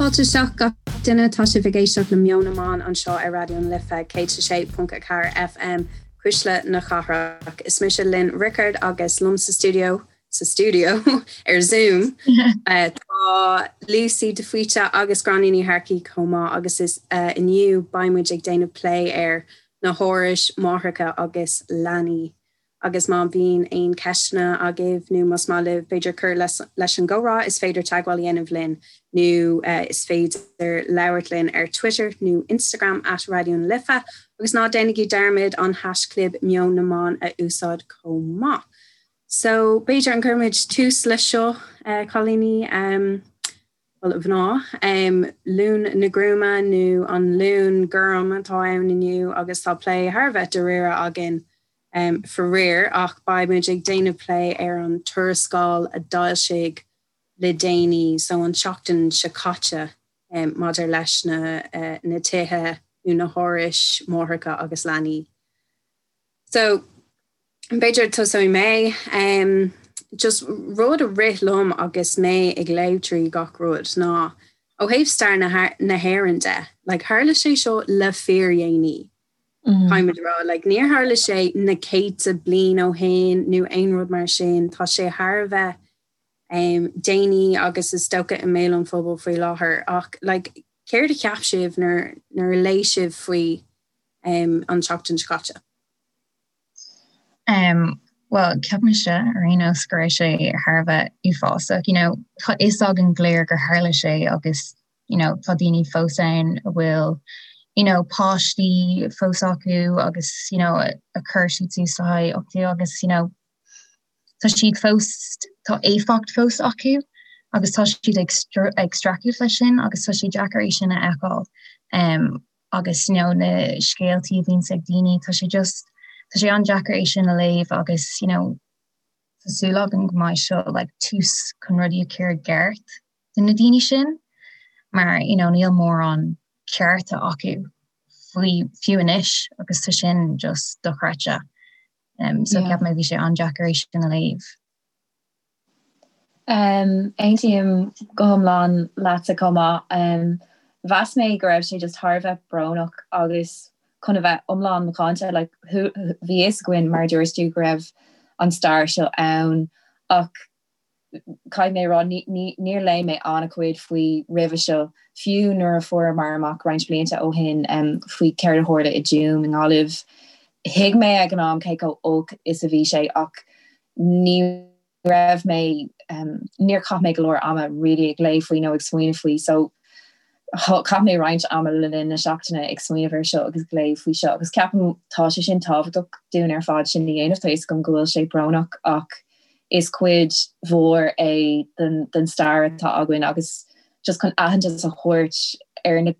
Fáilte isteach gach duine, tá sibh ag éisteacht le Meon na mBan anseo ar Raidió na Life 106.4 FM, Cuisle na Cathrach. Is mise Lynn Rickard agus liom sa stiúideo, sa stiúideo ar Zoom, tá Lucy de Faoite agus Gráinne Ní Shearcaigh chomh maith agus is inniu beidh muid ag déanamh plé ar na hárais máithreacha agus leanaí. Agus má bhíonn aon cheisteanna agaibh nó más maith libh b'fhéidir cur leis an gcomhrá is féidir teagmháil a dhéanamh linn nó is féidir labhairt linn ar Twitter nó Instagram at Raidió na Life agus ná déanaigí dearmad an haischlib Meon na mBan a úsáid chomh maith. So b'fhéidir an gcuirfimid tús leis seo cailíní bhuel a mhná, Luan na Gruama nó an Luan Gorm atá ann inniu agus tá plé thar a bheith dáiríre againn faraor ach beidh muid ag déanamh plé ar an tuarascáil a d'fhoilsigh le déanaí, so an tseachtain seo caite, maidir leis na na tithe nó na hárais máithreacha agus leanaí. So, b'fhéidir tosóidh mé. Um, just rud a rith liom agus mé ag léamh trí gach rud ná ó thaobh stair na, na hÉireann de, like, tharla sé seo le fíordhéanaí. Mm. Caithfimid a rá, like, níor tharla sé na céadta bliain ó shin nó aon rud mar sin, tá sé thar a bheith um, déanaí agus is dócha i mbéal an phobail faoi láthair ach like, céard a cheap sibh nuair, nuair a léigh sibh faoi um, an tseachtain seo caite? Um, well, ceapaimse ar aon nós go raibh sé thar a bheith uafásach. You know, tá fhios againn go léir gur tharla sé agus you know, tá daoine fós ann a bhfuil you know, páistí fós acu agus you know, a chuir siad suas le haghaidh uchtú agus you know, tá siad fós tá éifeacht fós acu agus tá siad ag ag streachailt leis sin agus tá sé deacair é sin a fheiceáil. Um, agus you know na scéaltaí a bhíonns ag daoine tá sé just tá sé an-deacair é sin a léamh agus you know tá súil agam go mbeidh seo like tús chun rudaí a chur i gceart do na daoine sin mar you know níl mórán cearta acu faoi fiú anois agus tá sin just dochreidte. Um, so yeah. ceap mé bhí sé an-deacair é sin a léamh. Aontaím go hiomlán leatsa chomh maith. Mheas mé go raibh sé just thar a bheith brónach agus chun a bheith iomlán macánta, like, bhí a fhios againn, mar a dúirt tú, go raibh an stair seo ann ach caithfidh mé a rá, níor léigh mé an-chuid faoi roimhe seo, fiú nuair a fuaireamar amach roinnt blianta ó shin faoi céard a tharla i dTuaim i nGaillimh. Thuig mé ag an am cé chomh olc is a bhí sé ach ní raibh mé, níor chaith mé go leor ama really ag léamh faoi nó ag smaoineamh faoi so chaith mé roinnt ama le linn na seachtaine ag smaoineamh air seo agus ag léamh faoi seo agus ceapaim tá sé sin tábhachtach dúinn ar fad sin a dhéanamh, tá fhios agam go bhfuil sé brónach ach is cuid mhór é den, den stair atá againn agus just chun aitheantas a thabhairt ar na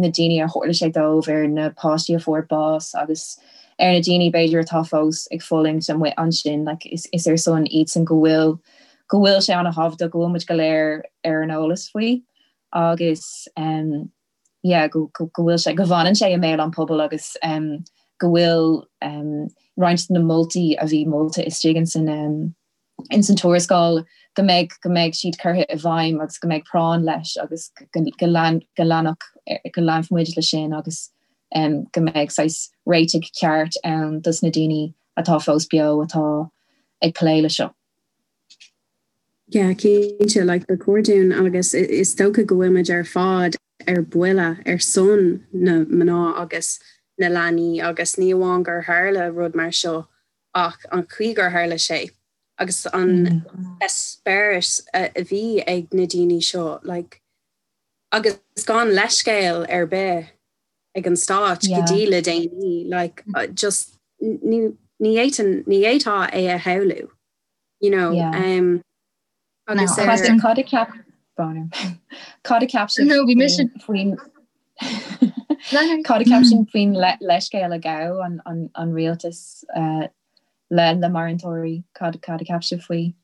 daoine a tharla sé dóibh, ar na páistí a fuair bás agus ar na daoine b'fhéidir atá fós ag fulaingt amuigh ansin, like is is ar son iadsan go bhfuil go bhfuil sé an-thábhachtach go bhfuil muid go léir ar an eolas faoi agus um, yeah, go, go, go bhfuil sé go bhfanann sé i mbéal an pobail agus um, go bhfuil um, roinnt de na moltaí a bhí molta istigh in san um, ins an tuarascáil go mbeidh go mbeidh siad curtha i bhfeidhm agus go mbeidh práinn leis agus go go lean go leanfadh go leanfaidh muid leis sin agus um, go mbeidh saghas réitigh ceart ann dos na daoine atá fós beo atá ag plé le seo. Yeah, cinnte, like ba chóir dúinn agus is dócha go bhfuil muid ar fad ar buile ar son na mná agus na leanaí agus ní amháin gur tharla rud mar seo ach an chaoi gur tharla sé agus an eispéireas a bhí ag na daoine seo like agus gan leithscéal ar bith ag an stát go dtí le déanaí like just ní ní fhéadfainn ní fhéadfá é a shamhlú you know um, agus ar cad a cheap cad a cheap sibh faoin Cad a cheap sibh faoin leithscéal a ghabh an rialtas le le maraítheoirí? Cad a cheap sibh faoi?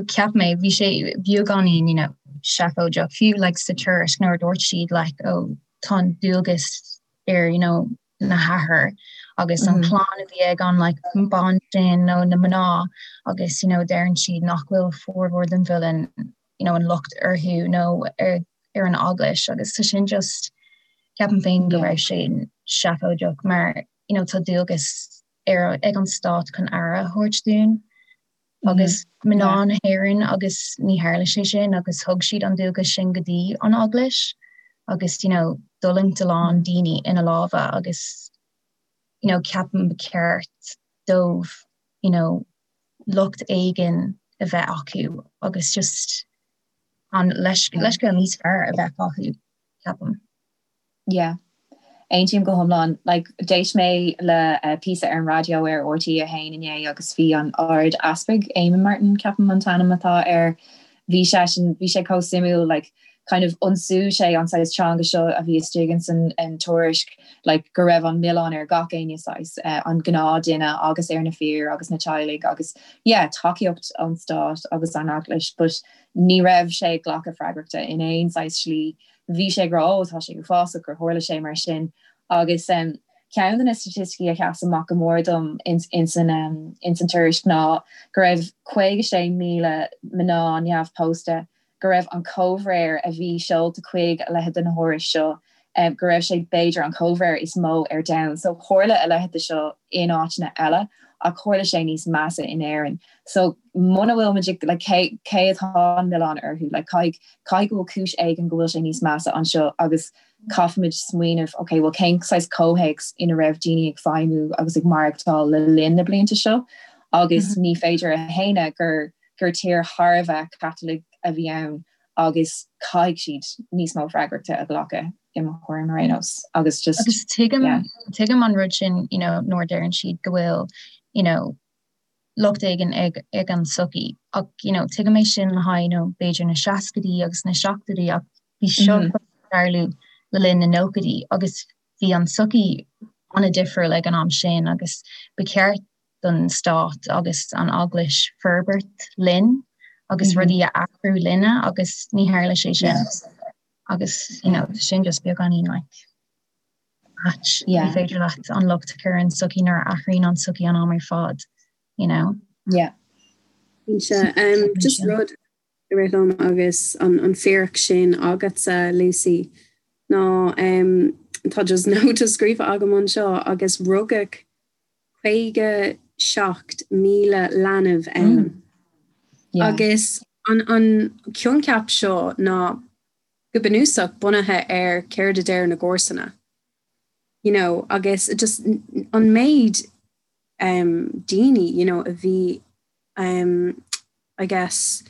Cheap mé bhí sé beagáinín you know seafóideach fiú like sa tuairisc nuair a dúirt siad like oh tá an dualgas ar you know na hathair agus an chlann a bhí ag an like bean sin nó na mná agus you know deireann siad nach bhfuil formhór den mhilleán. you know, an locht orthu nó ar ar an eaglais agus tá sin just ceapaim féin go raibh sé seafóideach mar you know, tá dualgas ar ag an stát chun aire a thabhairt dúinn agus mná na hÉireann agus ní tharla sé sin agus thug siad an dualgas sin go dtí an eaglais agus you know, d'fhulaingt a lán daoine ina lámha agus you know, ceapaim ba cheart dóibh you know, locht éigin a bheith acu agus just an leithscéal níos fearr a bheith acu, ceapaim. Yeah. Aontaím go hiomlán. Like, d'éist mé le píosa ar an raidió ar RTÉ 1 inné agus bhí an Ard-Easpag, Eamon Martin, ceapaim an t-ainm atá air, bhí seisean, bhí sé chomh suimiúil, like, kind of ionsaigh sé an saghas teanga seo a bhí istigh ins an tuairisc, like, go raibh an milleán ar gach éinne saghas, an gnáthduine agus ar na fir agus na teaghlaigh agus, yeah, tacaíocht ón stát agus an eaglais, but ní raibh sé ag glacadh freagrachta in aon saghas slí. Bhí sé ag rá, oh, tá sé uafásach gur tharla sé mar sin agus ceann de na staitisticí a sheas amach go mór dom ins an tuairisc ná go raibh 56,000 mná neamhphósta go raibh an comhréir a bhí seolta chuig a leithéid de na hárais seo, go raibh sé b'fhéidir an comhréir is mó ar domhan. So tharla a leithéid de seo in áiteanna eile ach tharla sé níos measa in Éirinn. So muna bhfuil muid ag, like, cé, cé atá an milleán orthu? Like, caithfidh, caithfidh go bhfuil cúis éigin go bhfuil sé níos measa anseo agus caithfimid smaoineamh, ok, well cén saghas comhthéacs ina raibh daoine ag feidhmiú agus ag maireachtáil le linn na blianta seo agus ní féidir a shéanadh gur gur tír thar a bheith Caitliceach a bhí ann agus caithfidh siad níos mó freagrachta a ghlacadh i mo thuairim ar aon nós agus just Agus tuigim, yeah. tuigim an rud sin, you know, nuair a deireann siad go bhfuil, you know, locht éigin ag, ag an tsochaí ach, you know, tuigim é sin le haghaidh, you know, b'fhéidir na seascaidí agus na seachtóidí ach bhí seo mm -hmm. tarlú le linn na nóchaidí agus bhí an tsochaí an-difriúil ag an am sin agus ba cheart don stát agus an eaglais forbairt linn agus rudaí a athrú linne agus ní tharla sé sin agus you know, sin just beagáinín like ait. Ní féidir leat an locht a chur ar an tsochaí nuair a athraíonn an tsochaí an am ar fad, you know. Yeah. Um, just rud a rith liom agus an, an fíric sin agatsa, Lucy, ná um, tá just nóta scríofa agam anseo agus rugadh 57,000 leanbh ann. Agus an coincheap seo ná go bunúsach bunaithe ar céard a deir na comharsana. You know, agus just an méid um, daoine you know, a bhí um, I guess,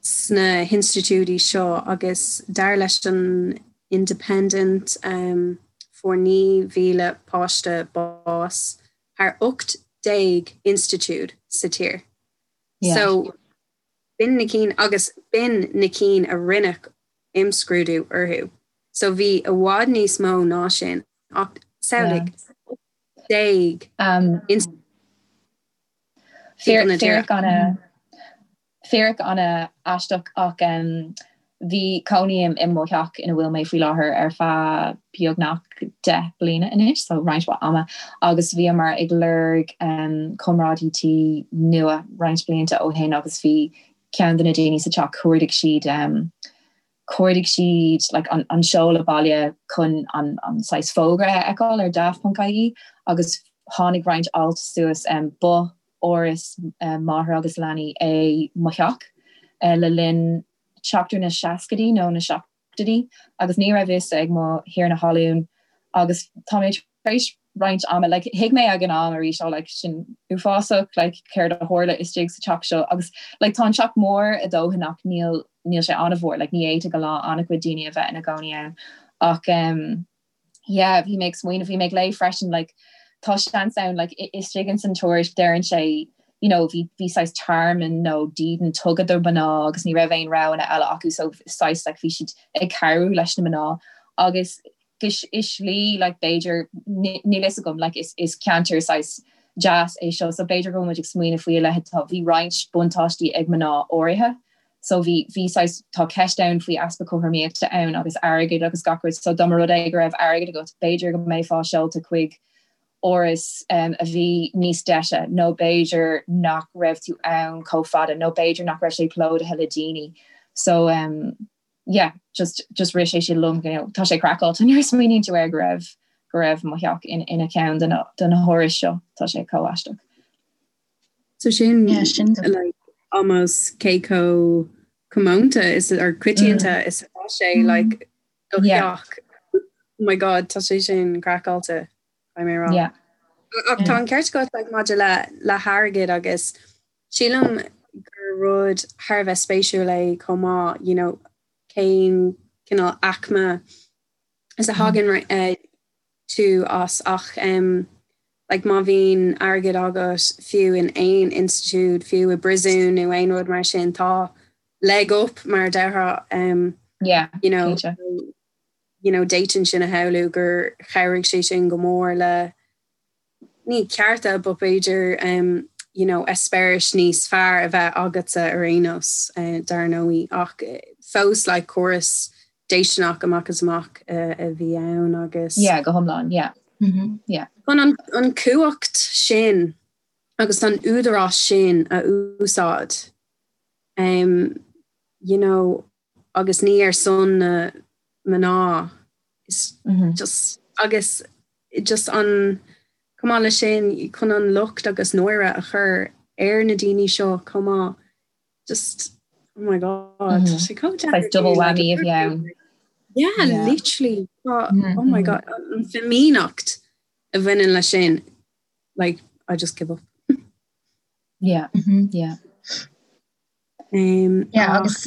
sna hinstitiúidí seo agus dar leis an Independent fuair 9,000 páiste bás thar 18 institiúid sa tír. So b'in na cinn agus b'in na cinn a rinneadh imscrúdú orthu. So bhí i bhfad níos mó ná sin ach samhlaigh 18 institiúid. Fíric an-aisteach ach bhí cónaím i mo theach ina bhfuil mé faoi láthair ar feadh beagnach 10 bliana anois, so roinnt mhaith ama, agus bhíomar ag lorg comrádaí tí nua roinnt blianta ó shin agus bhí ceann de na daoine sa teach chuardaigh siad chuardaigh siad like an an seoladh baile chun an an saghas fógra a fheiceáil ar daft.ie agus tháinig roinnt alt suas um, ba áras um, máthar agus leanaí é mo theach uh, le linn seachtar na seascaidí nó na seachtóidí agus ní raibh fhios ag mo thiarna talún agus tá mé tar éis roinnt ama, like, thuig mé ag an am arís, oh, like, sin uafásach, like, céard a tharla istigh sa teach seo agus, like, tá an teach mór a dóthain ach níl, níl sé an-mhór, like, ní fhéadfadh a lán, an-chuid daoine a bheith ina gcónaí ann ach, um, yeah, bhí mé ag smaoineamh, bhí mé ag léamh freisin, like, tá seans ann, like, istigh ins an tuairisc deireann sé, you know, bhí, bhí saghas tearmann nó dídean tugtha do mhná agus ní raibh aon roghanna eile acu so saghas, like, bhí siad ag cabhrú leis na mná agus i slí like b'fhéidir níl fhios agam like is is ceantar saghas deas é seo so b'fhéidir go bhfuil muid ag smaoineamh faoi a leithéid tá bhí roinnt buntáistí ag mná áirithe so bhí bhí saghas tá ceist ann faoi easpa cothromaíochta ann agus airgead agus gach rud so dá mba rud é go raibh airgead agat b'fhéidir go mbeifeá seolta chuig áras um, a bhí níos deise nó b'fhéidir nach raibh tú ann chomh fada nó b'fhéidir nach raibh sé plódaithe le daoine. So um, yeah, just, just rith sé sin liom, you know, tá sé craiceáilte nuair a smaoiníonn tú air go raibh go raibh mo theach in, ina ceann de na, de na hárais seo, tá sé chomh aisteach. So sin, yeah, sin like, almost cé chomh comónta is or coitianta mm. is atá sé mm. like do theach. Oh my god, tá sé sin craiceáilte mé rá. Yeah. Ach tá an ceart agat like, maidir le le hairgead agus sílim gur rud thar a bheith spéisiúil é chomh maith, you know, cén cineál aicme is a thagann mm. tú as ach um, like má bhíonn airgead agat fiú in aon institiúid, fiú i bpríosún nó aon rud mar sin tá leg up mar a déarfá um, yeah, you know, you know, d'fhéadfainn sin a shamhlú gur chabhraigh sé sin go mór le ní cearta but b'fhéidir um, you know, eispéiris níos fearr a bheith agatsa ar aon nós uh, dar ndóigh ach eh, fós like córas déistineach amach is amach uh, a bhí ann agus Yeah, go hiomlán, yeah. Mm -hmm. Yeah. Chun an, an cumhacht sin agus an údarás sin a úsáid um, you know, agus ní ar son na mná is mm -hmm. just agus just an chomh maith leis sin chun an locht agus náire a chur ar na daoine seo chomh maith just oh my god mm -hmm. sé chomh like double whammy a bhí ann. Yeah, yeah. literally oh, mm -hmm. oh my god an fhimíneacht a bhaineann leis sin like I just give up. Yeah mm -hmm. yeah. Um, yeah, agus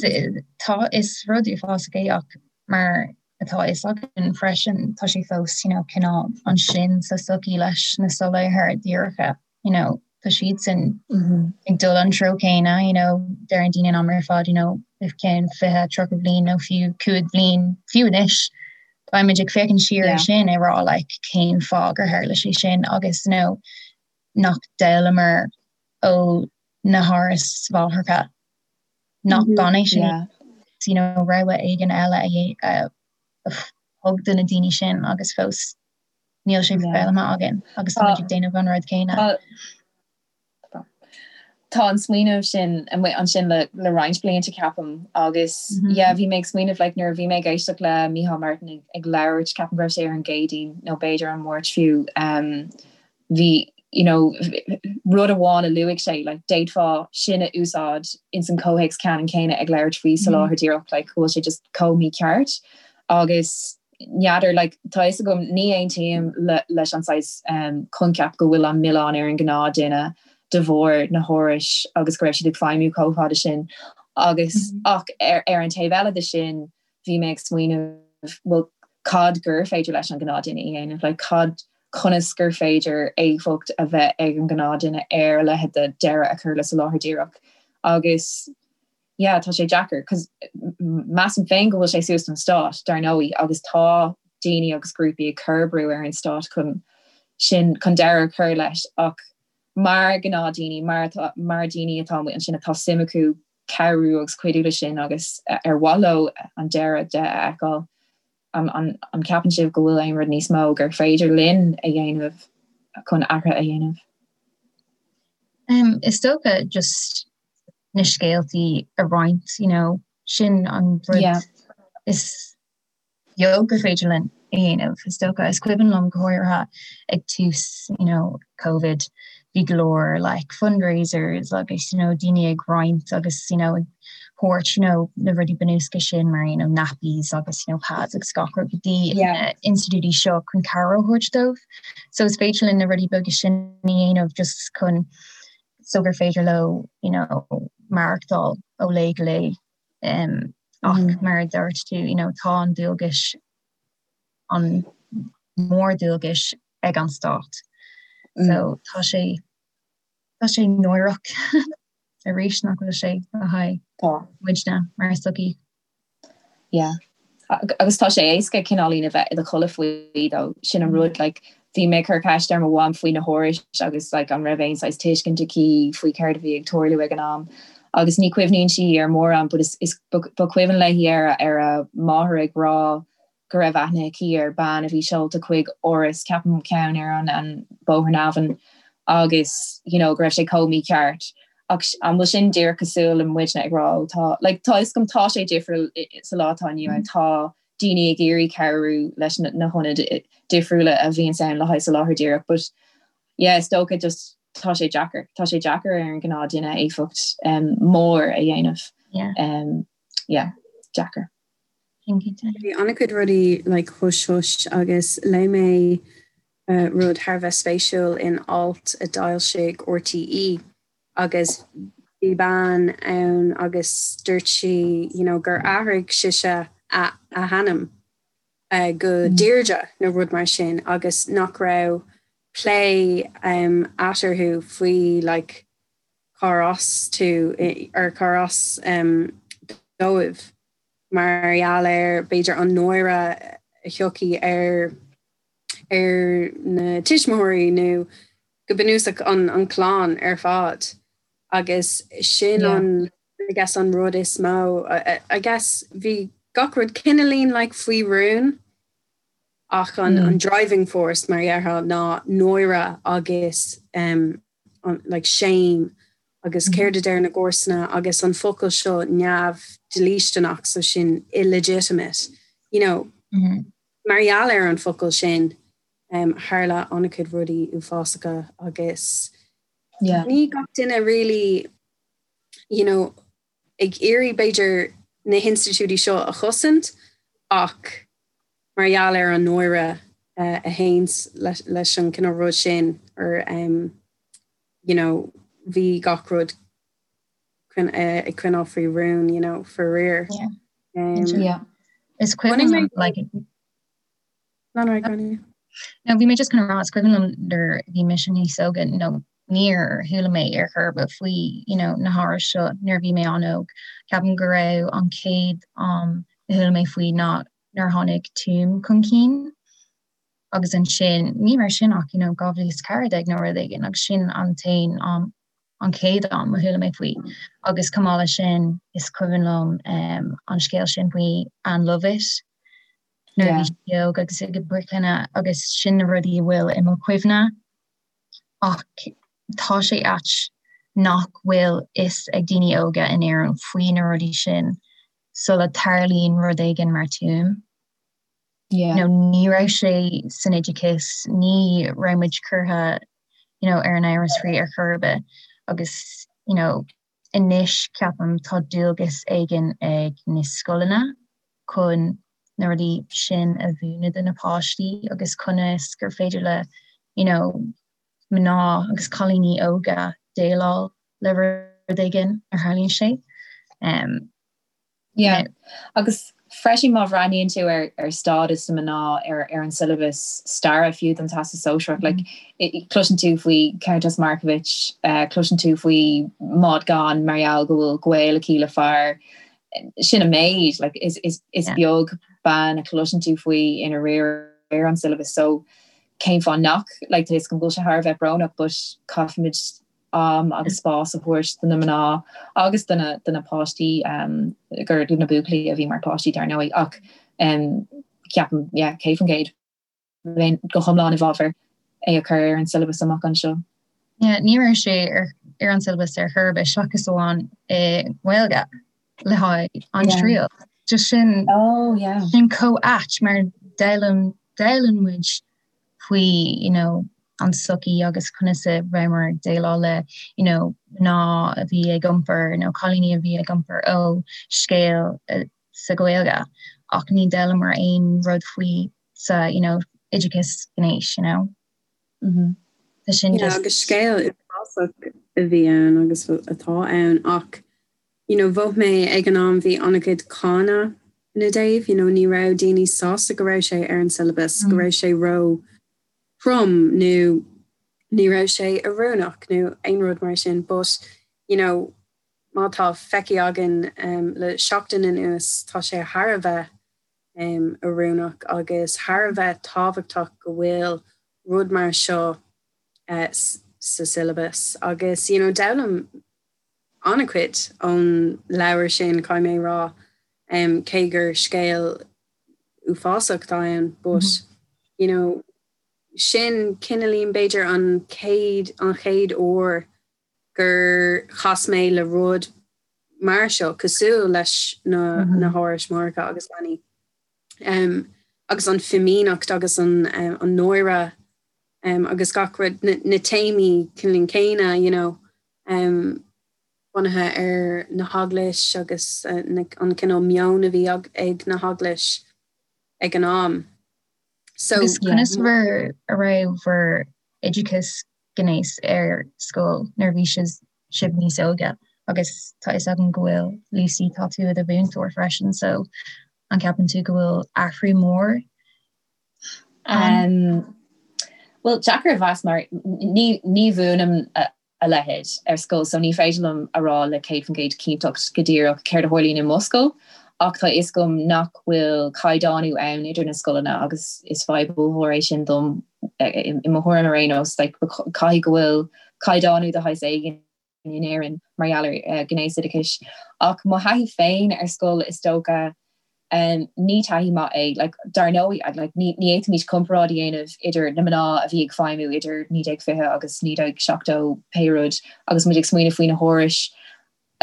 tá is rud uafásach é ach mar atá a fhios againn freisin tá sé fós you know, cineál ansin sa sochaí leis na soláthair díreacha you know, tá siadsan mm -hmm. ag dul an treo céanna you know, deireann daoine an am ar fad you know, i gceann 20 30 bliain nó fiú 5 bliain fiú anois beimid ag féachaint siar yeah. sin ag rá like, cén fáth gur tharla sé sin agus you know, nach d'fhoghlaimíomar ó na hárais mháithreacha nach gan é sin you know, rogha éigin eile a thug do na daoine sin agus fós níl sé foghlamtha againn agus tá ag déanamh an rud céanna. Tá an smaoineamh sin amuigh ansin le le roinnt blianta ceapaim agus mm -hmm. yeah, bhí mé ag smaoineamh like, nuair a bhí mé ag éisteacht le Micheál Martin ag, ag labhairt ceapaim go raibh sé ar an gCéadaoin nó b'fhéidir an Máirt fiú um, bhí you know, rud amháin a luaigh sé, like, d'fhéadfá sin a úsáid ins an comhthéacs ceannann céanna ag labhairt faoi soláthar díreach, like, go bhfuil sé just chomh mícheart agus n'fheadar, like, tá fhios agam ní aontaím le, leis an saghas um, coincheap go bhfuil an milleán ar an gnáthdhuine de bharr na hárais agus go raibh siad ag feidhmiú chomh fada sin agus mm -hmm. ach ar, ar an taobh eile de sin bhí mé ag smaoineamh, bhuel, cad gur féidir leis an gnáthdhuine a dhéanamh, like, cad, conas gur féidir éifeacht a bheith ag an gnáthdhuine ar a leithéid de deireadh a chur le soláthar díreach. Agus, yeah, tá sé deacair, cos measaim féin go bhfuil sé suas don stát, dar ndóigh, agus tá daoine agus grúpaí ag cur brú ar an stát chun sin, chun deireadh a chur leis, ach mar ghnáthdhaoine, mar atá, mar daoine atá amuigh ansin atá suim acu cabhrú agus cuidiú leis sin agus ar mhaith leo an deireadh de a fheiceáil. An gceapann sibh go bhfuil aon rud níos mó gur féidir linn a dhéanamh chun athruithe a dhéanamh? Um, is dócha just na scéaltaí a roinnt, you know, sin an rud yeah. is beag gur féidir linn a dhéanamh. Is dócha is cuimhin liom go háirithe ag tús you know, COVID bhí go leor like fundraisers agus you know, daoine ag roinnt agus you know, ag thabhairt you know, na rudaí bunúsacha sin mar you know, nappies agus you know, pads agus gach rud go dtí yeah. institiúidí seo chun cabhair a thabhairt dóibh. So is féidir linn na rudaí beaga sin a dhéanamh just chun so gur féidir leo you know, maireachtáil ó lá go lá. Um, ach mm. mar a dúirt tú you know, tá an dualgas an mór-dualgas ag an stát. Mm. So tá sé tá sé náireach arís nach bhfuil sé le haghaidh muidne mar sochaí. Yeah. Agus tá sé éasca cineáilín a bheith i do chodladh faoi though sin an rud like bhí mé ag cur ceist ar mo mham faoi na hárais agus like an raibh aon saghas tuiscint aici faoi céard a bhí ag tarlú ag an am agus ní chuimhníonn sí ar mórán but is, is ba chuimhin léi ar ar a máthair ag rá go raibh aithne aici ar bean a bhí seolta chuig áras ceapaim ceann ar an an Bóthar na hAbhann agus you know go raibh sé chomh mícheart. Ach an bhfuil sin díreach cosúil le muidne ag rá ó tá like tá fhios agam tá sé difriúil sa lá atá inniu ann tá daoine ag iarraidh cabhrú leis na hionaid difriúla a bhíonns ann le haghaidh soláthar díreach but yeah is dócha just tá sé deacair tá sé deacair ar an gnáth duine éifeacht um, mór a dhéanamh yeah. Um, yeah, deacair. Bhí an-chuid rudaí like hush hush agus léigh mé rud thar a bheith spéisiúil in alt a d'fhoilsigh RTÉ agus bhí bean ann agus dúirt sí you know gur athraigh sise a a hainm go Deirdre nó rud mar sin agus nach raibh plé eatarthu faoi like cár as tú or cár as dóibh mar gheall ar b'fhéidir an náire a thiocfaidh ar ar na tuismitheoirí nó go bunúsach an an clann ar fad agus sin an I guess an rud is mó I guess bhí gach rud cineáilín like faoi rún ach an an driving force mar dhéarfá ná náire agus um, an like shame agus céard a deir na comharsana agus an focal seo neamhdhlísteanach so sin illegitimate you know mm -hmm. Mar gheall ar an focal sin, tharla an-chuid rudaí uafásacha agus ní gach duine really you know ag iarraidh b'fhéidir na hinstitiúidí seo a chosaint ach mar gheall ar an náire a théanns leis an cineál rud sin or you know bhí gach rud ag coinneáil faoi rún, you know, faraor. Yeah. Is cuimhin liom like No, no, Gráinne. No, bhí mé just chun rá is cuimhin liom nuair a bhí mise níos óige nó níor chuala mé ar chor ar bith faoi you know, na hárais seo nuair a bhí mé an-óg. Ceapaim go raibh an chéad am a chuala mé faoi ná nuair a tháinig Tuaim chun cinn agus ansin ní raibh sin ach you know, 2014 nó rud éigin agus sin an t-aon am an chéad am a chuala mé faoi agus chomh maith leis sin is cuimhin liom an scéal sin faoi Ann Lovett nuair a bhí sí óg agus ag bricleanna agus sin na rudaí a bhfuil i mo chuimhne ach tá sé ait nach bhfuil fhios ag daoine óga in Éirinn faoi na rudaí sin sula tarlaíonn rud éigin mar Tuaim. Yeah. You know, ní raibh sé san oideachas, ní raibh muid curtha you know, ar an eolas faoi ar chor ar bith agus you know, anois ceapaim tá dualgas éigin ag na scoileanna chun na rudaí sin a mhúineadh do na páistí agus conas gur féidir le you know, mná agus cailíní óga déileáil le rud éigin a tharlaíonn sé. Um, Yeah. Agus freisin má bhreathnaíonn tú ar ar stádas na mná ar ar an siollabas staire fiú don Teastas Sóisearach, like, cloiseann tú faoi Countess Markievicz, uh, cloiseann tú faoi Maud Gonne mar gheall go bhfuil gaol aici le fear sin an méid, like, is, is, is yeah. beag bean a chloiseann tú faoi ina riar ar an siollabas so cén fáth nach like, tá fhios agam go bhfuil sé thar a bheith brónach but caithfimid am agus spás a thabhairt do na mná agus do na do na páistí gur do na buachaillí a bhí mar páistí dar ndóigh ach ceapaim yeah 100% bheinn go hiomlán i bhfabhar é a chur ar an siollabas amach anseo. Yeah, ní raibh sé ar ar an siollabas ar chor ar bith seachas amháin i nGaeilge le haghaidh an triail. Just sin oh, yeah. sin chomh ait mar d'fhoghlaim d'fhoghlaim muid faoi you know an tsochaí agus conas a rabhamar ag déileáil le you know mná a bhí ag iompar nó cailíní a bhí ag iompar ó scéal sa Ghaeilge ach ní d'fhoghlamar aon rud faoi sa you know oideachas gnéis you know. Mm -hmm. Tá sin yeah, agus scéal uafásach a bhí ann agus atá ann ach you know mhothaigh mé ag an am bhí an-chuid cáineadh ina dtaobh, you know ní raibh daoine sásta go raibh sé ar an syllabus, go raibh sé ró throm nó ní raibh sé oiriúnach nó aon rud mar sin but you know má tá feicthe againn um, le seachtain anuas tá sé thar a bheith um, oiriúnach agus thar a bheith tábhachtach go bhfuil rud mar seo uh, sa syllabus agus you know d'fhoghlaim an-chuid ón leabhar sin, caithfidh mé a rá, cé gur scéal uafásach atá ann, but, you know, sin cineáilín b'fhéidir an chéad, an chéad uair gur chas mé le rud mar seo cosúil leis na na hárais máithreacha agus leanaí. Um, agus an fhimíneacht agus an, um, an náire um, agus gach rud na, na téamaí cineál céanna, you know, um, bunaithe ar na heaglais agus uh, na, an cineál meon a bhí ag, ag na heaglais ag an am. So, Agus conas bhur a raibh bhur oideachas gnéis ar scoil nuair a bhí sibh níos óige agus tá fhios agam go bhfuil Lucy tá tú i do mhúinteoir freisin so an ceapann tú go bhfuil athrú mór ann? Bhuel deacair a mheas mar ní ní mhúinim a leithéid ar scoil so ní féidir liom a rá le 100% cinnteacht go díreach céard a tharlaíonn i mo scoil ach tá a fhios agam nach bhfuil caighdeánú ann idir na scoileanna agus is fadhb ollmhór é sin dom i mo thuairim ar aon nós like caithfidh go bhfuil caighdeánú de shaghas éigin in Éirinn mar gheall ar ghnéasoideachais ach mo thaithí féin ar scoil is dócha Ní taithí maith é. Like, dar ndóigh, like, ní, ní fhéadfaimid comparáid a dhéanamh idir na mná a bhí ag feidhmiú idir 1920 agus 1970 pé rud agus muid ag smaoineamh faoi na hárais.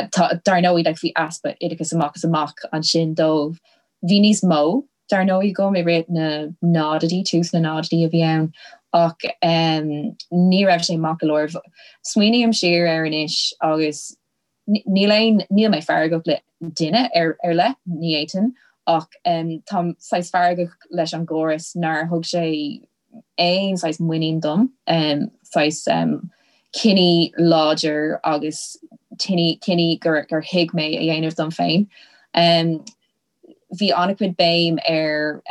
Tá, dar ndóigh, like, bhí easpa oideachais amach is amach ansin dóibh. Bhí níos mó, dar ndóigh, agam i rith na náididí, tús na náididí a bhí ann ach ní raibh sé maith go leor. Smaoiním siar air anois agus Níl aon, níl mé feargach le duine ar ar leith, ní fhéadfainn, ach táim saghas feargach leis an gcóras nár thug sé aon saghas muinín dom, saghas cinní láidir agus cinní gur gur thuig mé a dhéanamh dom féin. Bhí an-chuid béim ar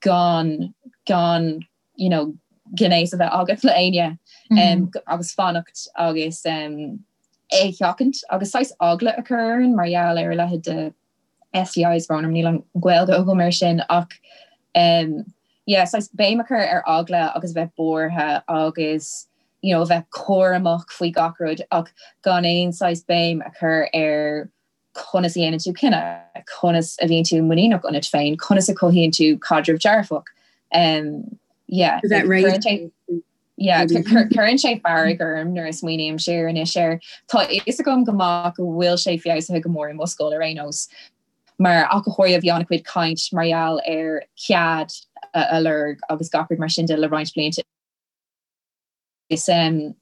gan gan you know, gnéas a bheith agat le éinne agus fanacht agus é a sheachaint agus saghas eagla a chur orainn mar gheall ar a leithéid de STIs, brón orm níl an Ghaeilge agam air sin ach yeah, saghas béim a chur ar eagla agus a bheith buartha agus you know, a bheith cúramach faoi gach rud ach gan aon saghas béim a chur ar conas a dhéanann tú cinneadh, conas a bhíonn tú muiníneach ionat féin, conas a chothaíonn tú caidreamh dearfach. Um, yeah, cuireann yeah, cuireann sé fearg orm nuair a smaoiním siar anois air. Tá fhios agam go maith go bhfuil sé feabhsaithe go mór i mo scoil ar aon nós, mar ach go háirithe bhí an-chuid caint mar gheall ar cead a lorg agus gach rud mar sin de le roinnt blianta. is em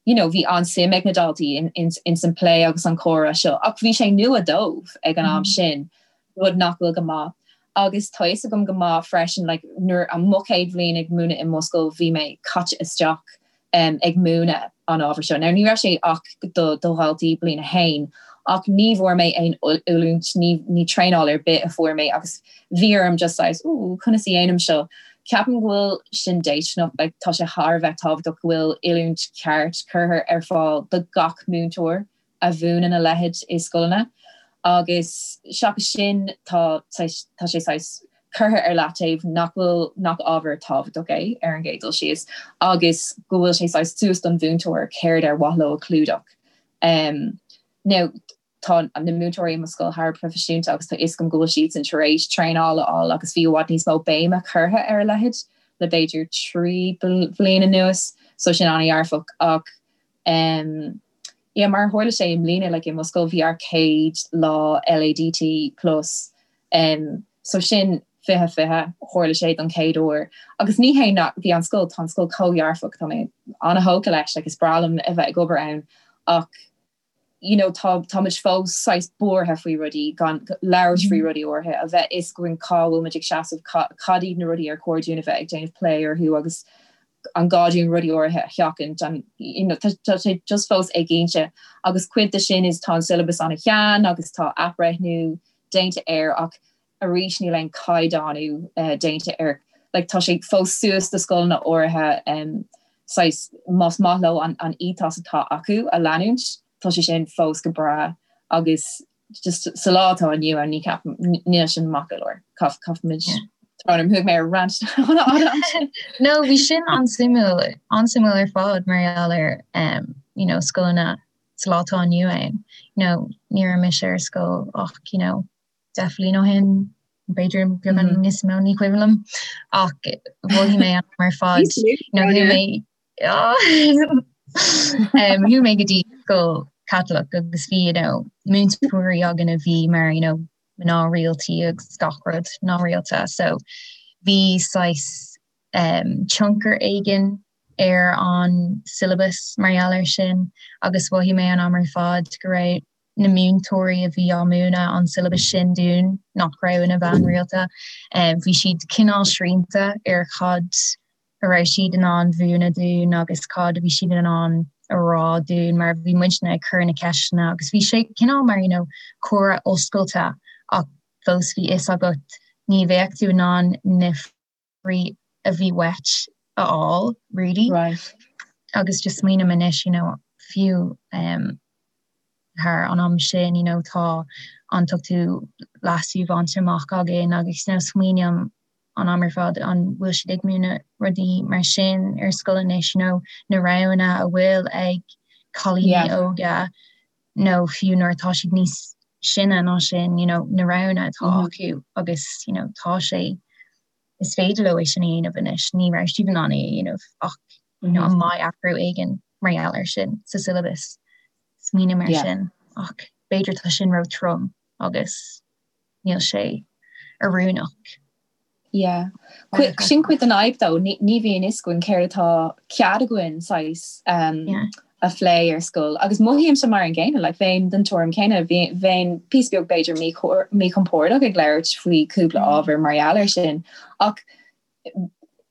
you know bhí an-suim ag na daltaí in, in, in san plé agus an comhrá seo ach bhí sé nua dóibh ag an am sin rud nach bhfuil go maith. Agus tá fhios agam go maith freisin like nuair an mo chéad bhliain ag múineadh i mo scoil bhí mé caite isteach um, ag múineadh an ábhar seo. Now ní raibh sé ach do, do dhaltaí bliain a haon ach ní bhfuair mé aon oiliúint, ní, ní traenáil ar bith a fuair mé agus bhí orm just saghas, ooh, conas a dhéanaim seo? Ceapaim go bhfuil sin déisteanach, like tá sé thar a bheith tábhachtach go bhfuil oiliúint cheart curtha ar fáil do gach múinteoir a mhúineann a leithéid i scoileanna agus seachas sin tá tá sé saghas curtha ar leataobh nach bhfuil nach ábhar tábhachtach é ar an gcéad dul síos agus go bhfuil sé saghas suas don mhúinteoir céard ar mhaith leo a chlúdach. Um, now, Tá na múinteoirí i mo scoil thar a bheith proifisiúnta agus tá fhios agam go bhfuil siadsan tar éis traenáil a fháil agus bhí i bhfad níos mó béime curtha ar a leithéid le b'fhéidir 3 bhliain anuas so sin an-dhearfach ach um yeah mar a tharla sé i mbliana like i mo scoil bhí ár céad lá LADT plus um so sin 20 20 tharla sé don chéad uair agus ní hé nach bhí an scoil tá an scoil chomh dhearfach tá mé an-thógtha leis like is breá liom a bheith ag obair ann ach you know tá táimid fós saghas buartha faoi rudaí, gan labhairt faoi rudaí áirithe, a bheith fhios againn cá bhfuil muid ag seasamh, cad iad na rudaí ar chóir dúinn a bheith ag déanamh plé orthu agus an gá dúinn rudaí áirithe a sheachaint, an you know tá sé just fós éiginnte agus cuid de sin is tá an syllabus an-shean agus tá athbhreithniú déanta air ach arís níl aon caighdeánú déanta air. Like tá sé fós suas do scoileanna áirithe um, saghas más maith leo an, an ethos atá acu a leanúint, tá sé sin fós go breá agus just sa lá atá inniu ann ní ceapaim níl sin maith go leor. Caithfimid Tá thug mé ar rant No, bhí sin an-suimiúil an-suimiúil ar fad mar gheall ar um, you know, scoileanna sa lá atá inniu ann. You know, ní raibh mise ar scoil ach you know, 10 bhliain ó shin, b'fhéidir beagán níos mó ní cuimhin liom ach mhothaigh mé ar fad nó bhí mé. Um, chuaigh mé go dtí scoil Caitliceach agus bhí you know, múinteoirí againn a bhí mar you know, mná rialta agus gach rud mná rialta so bhí saghas um, tionchar éigin ar an syllabus mar gheall air sin agus mhothaigh mé an am ar fad go raibh na múinteoirí a bhí á múineadh an syllabus sin dúinn nach raibh ina bhean rialta um, bhí siad cineál srianta ar cad a raibh siad in ann mhúineadh dúinn agus cad a bhí siad in ann a rá dúinn mar bhí muidne ag cur na ceisteanna agus bhí sé cineál mar you know, comhrá oscailte ach fós bhí fhios agat ní bheadh tú in ann na freagraí a bhí uait a fháil really. Right. Agus just smaoiním anois you know, fiú um, thar an am sin you know, tá an t-ochtú leasú bainte amach againn agus you know, smaoiním an am ar fad an bhfuil siad ag múineadh rudaí mar sin ar scoil anois you know, na roghanna a bhfuil ag cailíní Yeah. óga nó fiú nuair atá siad níos sine ná sin you know, na roghanna atá Mm -hmm. acu agus you know, tá sé is féidir leo é sin a dhéanamh anois ní raibh siad in ann é a dhéanamh ach you know, Mm -hmm. an mbeidh athrú éigin mar gheall air sin sa syllabus smaoiním mar Yeah. sin ach b'fhéidir tá sin ró trom agus níl sé oiriúnach. Yeah. Sin cuid den fhadhb though, ní bhíonn fhios againn céard atá cead againn saghas um, Yeah. a phlé ar scoil. Agus mothaímse mar an gcéanna, like, bheinn den tuairim céanna, bheinn píosa beag b'fhéidir míchompordach ag labhairt faoi cúpla ábhar mar gheall air sin. Ach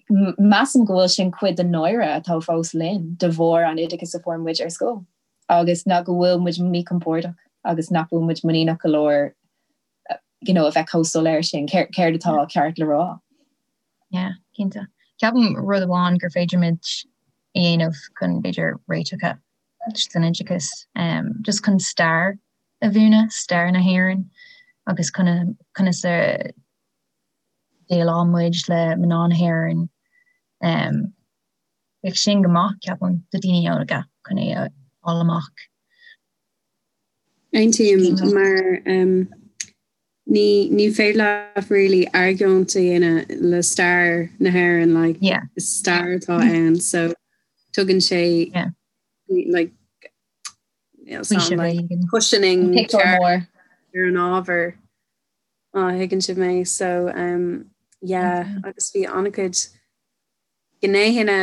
measaim go bhfuil sin cuid den náire atá fós linn de bharr an oideachas a fuair muid ar scoil. Agus ná go bhfuil muid míchompordach agus nach bhfuil muid muiníneach go leor you know, a bheith chomh soiléir sin, céard atá ceart le rá. Yeah, cinnte. Ceapaim rud amháin gur féidir muid a dhéanamh chun b'fhéidir réiteach san oideachas, um, just chun stair a mhúineadh, stair na hÉireann agus conas a dhéileáil muid le mná na hÉireann. Um, bheadh sin go maith, ceapaim, do daoine óga chun é a fháil amach. Aontaím mar um, ní ní féidir leat really argóint a dhéanamh le stair na hÉireann like, yeah. is stair atá ann so tugann sé yeah. like, you know, like, cushioning mór ar an ábhar má thuigeann sibh mé so um, yeah, mm -hmm. agus bhí an-chuid gnéithe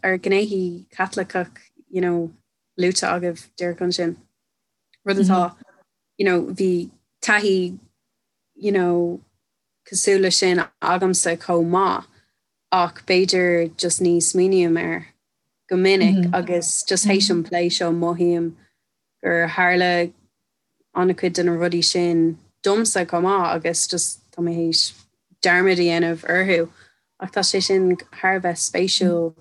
ar gnéithe Caitliceach you know, luaite agaibh díreach ansin. Rud atá you know, bhí taithí you know, cosúil le sin agamsa chomh maith ach b'fhéidir just ní smaoiním air go minic mm -hmm. agus just théis an plé seo mothaím gur tharla an-chuid de na rudaí sin domsa chomh maith agus just tá mé théis dearmad a dhéanamh orthu ach tá sé sin thar a bheith spéisiúil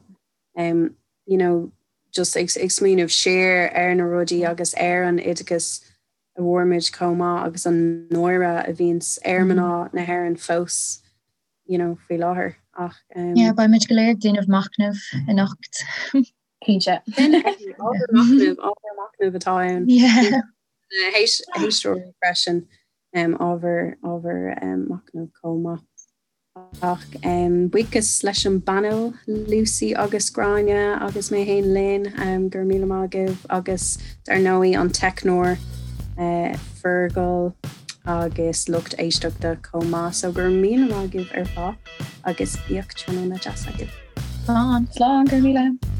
um, you know, just ag, ag smaoineamh siar ar na rudaí agus ar an oideachas a bhfuair muid chomh maith agus an náire a bhíonns ar mná na hÉireann fós you know, faoi láthair ach um, Yeah, beidh muid go léir ag déanamh machnaimh anocht. Cinnte. Ábhar machnaimh, ábhar machnaimh atá ann. Yeah. Héisteoirí freisin um, ábhar ábhar um, machnaimh chomh maith. Ach um, buíochas leis an bpainéal Lucy agus Gráinne agus mé féin Lynn um, go raibh míle maith agaibh agus dar ndóigh an teicneoir uh, Fergal agus lucht éisteachta chomh maith so go raibh míle maith agaibh ar fad agus bíodh tráthnóna deas agaibh. Slán. Slán go raibh míle.